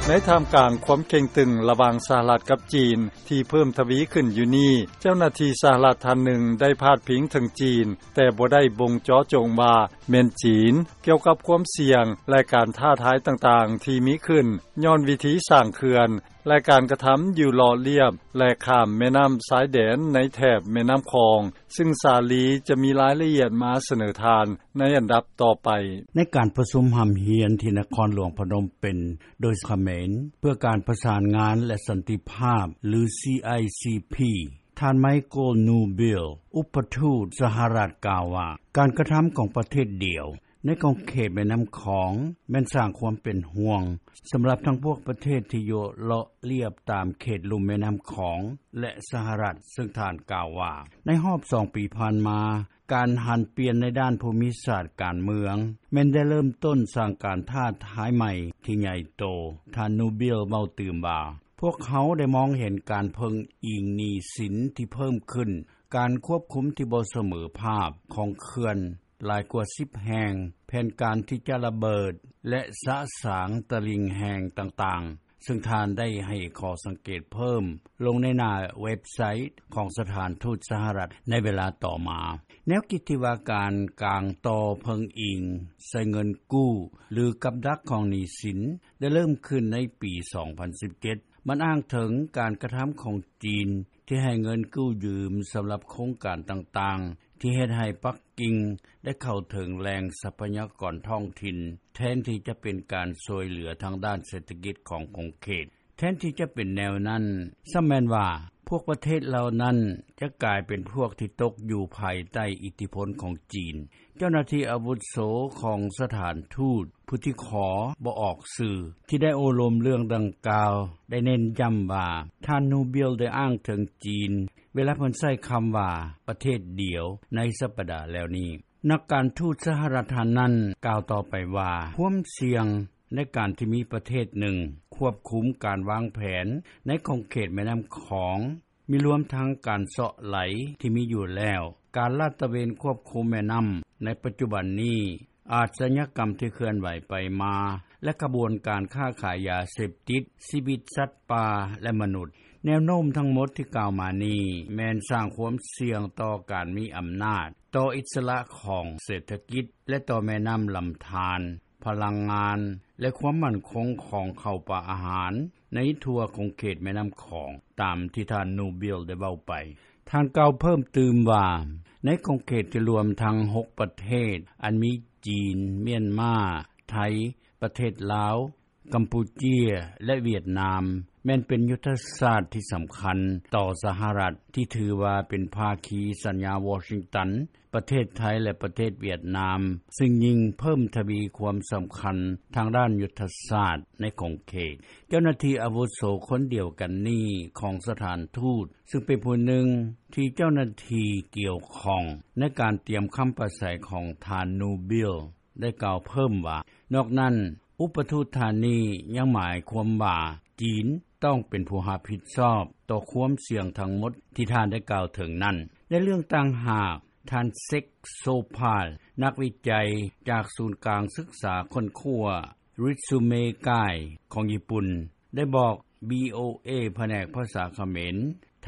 ໃນທ່າມກາງຄວາມເຄັ່ງຕຶງລະຫວ່າງສະຫະລັດກັບຈີນ ທີ່ເພີ່ມທະວີຂຶ້ນຢູ່ນີ້, ເຈົ້າໜ້າທີ່ສະຫະລັດທ່ານໜຶ່ງໄດ້ພາດພິງເຖິງຈີນ, ແຕ່ບໍ່ໄດ້ບົ່ງເຈາະຈົງວ່າແມ່ນຈີນ ກ່ຽວກັບຄວາມສ່ຽງ ແລະ ການທ້າທາຍຕ່າງໆທີ່ມີຂຶ້ນ ຍ້ອນວິທີສ້າງເຂື່ອນ ແລະ ການກະທຳຢູ່ເລາະລຽບ ແລະ ຂ້າມແມ່ນ້ຳຊາຍແດນໃນແຖບແມ່ນ້ຳຂອງ, ຊຶ່ງສາລີຈະມີລາຍລະອຽດມາສະເໜີທ່ານໃນອັນດັບຕໍ່ໄປ. ໃນການປະຊຸມຮ່ຳຮຽນທີ່ນະຄອນຫຼວງພະນົມເປັນ ໂດຍຂະເໝນ ເພື່ອການປະສານງານ ແລະ ສັນຕິພາບ ຫຼື CICP, ທ່ານ Michael Newbill ອຸປະທູດສະຫະລັດກ່າວວ່າ ການກະທຳຂອງປະເທດດຽວ ໃນຂອງເຂດແມ່ນ້ຳຂອງ ແມ່ນສ້າງຄວາມເປັນຫ່ວງ ສຳລັບທັງພວກປະເທດທີ່ຢູ່ເລາະລຽບຕາມເຂດລຸ່ມແມ່ນ້ຳຂອງ ແລະ ສະຫະລັດ, ຊຶ່ງທ່ານກ່າວວ່າ ໃນຮອບສອງປີຜ່ານມາ, ການຫັນປ່ຽນໃນດ້ານພູມິສາດການເມືອງ ແມ່ນໄດ້ເລີ່ມຕົ້ນສ້າງການທ້າທາຍໃໝ່ທີ່ໃຫຍ່ໂຕ, ທ່ານ Newbill ເວົ້າຕື່ມວ່າ ພວກເຮົາໄດ້ມອງເຫັນການເພິ່ງອີງໜີ້ສິນທີ່ເພີ່ມຂຶ້ນ, ການຄວບຄຸມທີ່ບໍ່ສະເໝີພາບຂອງເຂື່ອນຫຼາຍກວ່າສິບແຫ່ງ, ແຜນການທີ່ຈະລະເບີດ ແລະ ສະສາງຕະລິ່ງແຫ້ງຕ່າງໆ, ຊຶ່ງທ່ານໄດ້ໃຫ້ຂໍ້ສັງເກດເພີ່ມລົງໃນໜ້າເວັບໄຊຂອງສະຖານທູດສະຫະລັດໃນເວລາຕໍ່ມາ. ແນວຄິດທີ່ວ່າການກາງຕໍ່ເພິ່ງອີງໃສ່ເງິນກູ້ ຫຼື ກັບດັກຂອງໜີ້ສິນ ໄດ້ເລີ່ມຂຶ້ນໃນປີສອງພັນສິບເຈັດ. ມັນອ້າງເຖິງການກະທຳຂອງຈີນ ທີ່ໃຫ້ເງິນກູ້ຢືມສຳລັບໂຄງການຕ່າງໆ ທີ່ເຮັດໃຫ້ປັກກິ່ງໄດ້ເຂົ້າເຖິງແຫຼ່ງຊັບພະຍາກອນທ້ອງຖິ່ນ ແທນທີ່ຈະເປັນການຊ່ວຍເຫຼືອທາງດ້ານເສດຖະກິດຂອງຂົງເຂດ. ແທນທີ່ຈະເປັນແນວນັ້ນ, ຊ້ຳແມ່ນວ່າພວກປະເທດເຫຼົ່ານັ້ນຈະກາຍເປັນພວກທີ່ຕົກຢູ່ພາຍໃຕ້ອິດທິພົນຂອງຈີນ. ເຈົ້າໜ້າທີ່ອາວຸໂສຂອງສະຖານທູດ ຜູ້ທີ່ຂໍບໍ່ອອກຊື່ ທີ່ໄດ້ໂອ້ລົມເລື່ອງດັ່ງກ່າວ ໄດ້ເນັ້ນຢ້ຳວ່າ ທ່ານ Newbill ໄດ້ອ້າງເຖິງຈີນ ເວລາເພິ່ນໃຊ້ຄຳວ່າ ປະເທດດຽວ ໃນສັບປະດາແລ້ວນີ້. ນັກການທູດສະຫະລັດທ່ານນັ້ນກ່າວຕໍ່ໄປວ່າ ຄວາມສ່ຽງໃນການທີ່ມີປະເທດໜຶ່ງຄວບຄຸມການວາງແຜນໃນຂົງເຂດແມ່ນ້ຳຂອງ ມີລວມທັງການເຊາະໄຫຼທີ່ມີຢູ່ແລ້ວ, ການລາດຕະເວນຄວບຄຸມແມ່ນ້ຳໃນປັດຈຸບັນນີ້, ອາດຊະຍາກຳທີ່ເຄື່ອນໄຫວໄປມາ ແລະ ຂະບວນການຄ້າຂາຍຢາເສບຕິດ, ຊີວິດສັດປ່າ ແລະ ມະນຸດ. ແນວໂນ້ມທັງໝົດທີ່ກ່າວມານີ້ ແມ່ນສ້າງຄວາມສ່ຽງຕໍ່ການມີອຳນາດ, ຕໍ່ອິດສະຫຼະຂອງເສດຖະກິດ ແລະ ຕໍ່ແມ່ນ້ຳລຳທານ, ພະລັງງານ ແລະ ຄວາມໝັ້ນຄົງຂອງເຂົ້າປາອາຫານໃນທົ່ວຂົງເຂດແມ່ນ້ຳຂອງ, ຕາມທີ່ທ່ານ Newbill ໄດ້ເວົ້າໄປ. ທ່ານກ່າວເພີ່ມຕື່ມວ່າ ໃນຂົງເຂດທີ່ລວມທັງຫົກປະເທດ ອັນມີຈີນ, ມຽນມາ, ໄທ, ປະເທດລາວ, ກຳປູເຈຍ ແລະ ຫວຽດນາມ ແມ່ນເປັນຍຸດທະສາດທີ່ສຳຄັນຕໍ່ສະຫະລັດ ທີ່ຖືວ່າເປັນພາຄີສັນຍາວໍຊິງຕັນ, ປະເທດໄທ ແລະ ປະເທດຫວຽດນາມ ຊຶ່ງຍິ່ງເພີ່ມທະວີຄວາມສຳຄັນທາງດ້ານຍຸດທະສາດໃນຂົງເຂດ. ເຈົ້າໜ້າທີ່ອາວຸໂສຄົນດຽວກັນນີ້ຂອງສະຖານທູດ ຊຶ່ງເປັນຜູ້ໜຶ່ງທີ່ເຈົ້າໜ້າທີ່ກ່ຽວຂ້ອງໃນການຕຽມຄຳປາໄສຂອງທ່ານ Newbill ໄດ້ກ່າວເພີ່ມວ່າ ນອກນັ້ນ ອຸປະທູດທ່ານນີ້ຍັງໝາຍຄວາມວ່າ ຈີນຕ້ອງເປັນຜູ້ຮັບຜິດຊອບຕໍ່ຄວາມສ່ຽງທັງໝົດທີ່ທ່ານໄດ້ກ່າວເຖິງນັ້ນ. ໃນເລື່ອງຕ່າງຫາກ, ທ່ານ Sek Sopal ນັກວິໄຈຈາກສູນກາງສຶກສາຄົ້ນຄວ້າ Ritsumeikai ຂອງຍີ່ປຸ່ນ ໄດ້ບອກ ວີໂອເອ ພະແນກພາສາຂະເໝນ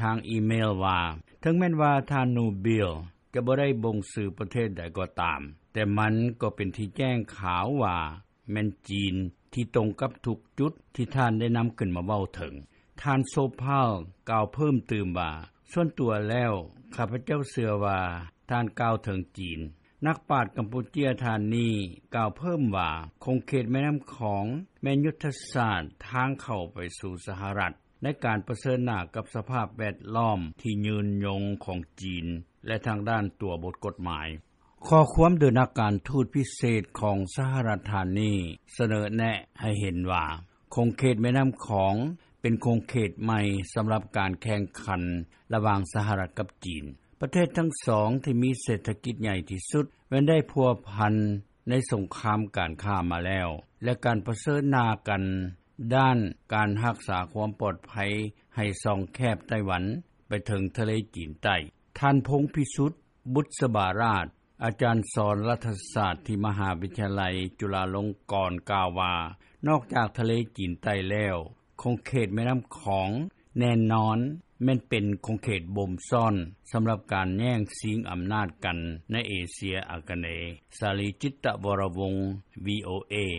ທາງອີເມລວ່າ ເຖິງແມ່ນວ່າທ່ານ Newbill ຈະບໍ່ໄດ້ບົ່ງຊື່ປະເທດໃດກໍຕາມ, ແຕ່ມັນກໍເປັນທີ່ແຈ້ງຂາວວ່າ ແມ່ນຈີນທີ່ຕົງກັບທຸກຈຸດທີ່ທ່ານໄດ້ນຳຂຶ້ນມາເວົ້າເຖິງ. ທ່ານ Sopal ກ່າວເພີ່ມຕື່ມວ່າ ສ່ວນຕົວແລ້ວ ຂ້າພະເຈົ້າເຊື່ອວ່າທ່ານກ່າວເຖິງຈີນ. ນັກປາດກຳປູເຈຍທ່ານນີ້ກ່າວເພີ່ມວ່າ ຂົງເຂດແມ່ນ້ຳຂອງແມ່ນຍຸດທະສາດທາງເຂົ້າໄປສູ່ສະຫະລັດ ໃນການປະເຊີນໜ້າກັບສະພາບແວດລ້ອມທີ່ຍືນຍົງຂອງຈີນ ແລະ ທາງດ້ານຕົວບົດກົດໝາຍ. ຂໍ້ຄວາມໂດຍນັກການທູດພິເສດຂອງສະຫະລັດທ່ານນີ້ສະເໜີແນະໃຫ້ເຫັນວ່າ ຂົງເຂດແມ່ນ້ຳຂອງເປັນຂົງເຂດໃໝ່ສຳລັບການແຂ່ງຂັນລະຫວ່າງສະຫະລັດກັບຈີນ. ປະເທດທັງສອງທີ່ມີເສດຖະກິດໃຫຍ່ທີ່ສຸດແມ່ນໄດ້ພົວພັນໃນສົງຄາມການຄ້າມາແລ້ວ ແລະ ການປະເຊີນໜ້າກັນດ້ານການຮັກສາຄວາມປອດໄພໃຫ້ຊ່ອງແຄບໄຕ້ຫວັນໄປເຖິງທະເລຈີນໃຕ້. ທ່ານ ພົງພິສຸດ ບຸດສະບາລາດ ອາຈານສອນລັດຖະສາດ ທີ່ມະຫາວິທະຍາໄລ ຈຸລາລົງກອນ ກ່າວວ່າ ນອກຈາກທະເລຈີນໃຕ້ແລ້ວ ຂົງເຂດແມ່ນໍ້າຂອງ ແນ່ນອນ ແມ່ນເປັນຂົງເຂດບົ່ມຊ້ອນ ສຳລັບການແຍ່ງຊິງອຳນາດກັນ ໃນເອເຊຍອາກະເນ. ສາລີ ຈິດຕະວໍຣະວົງ VOA.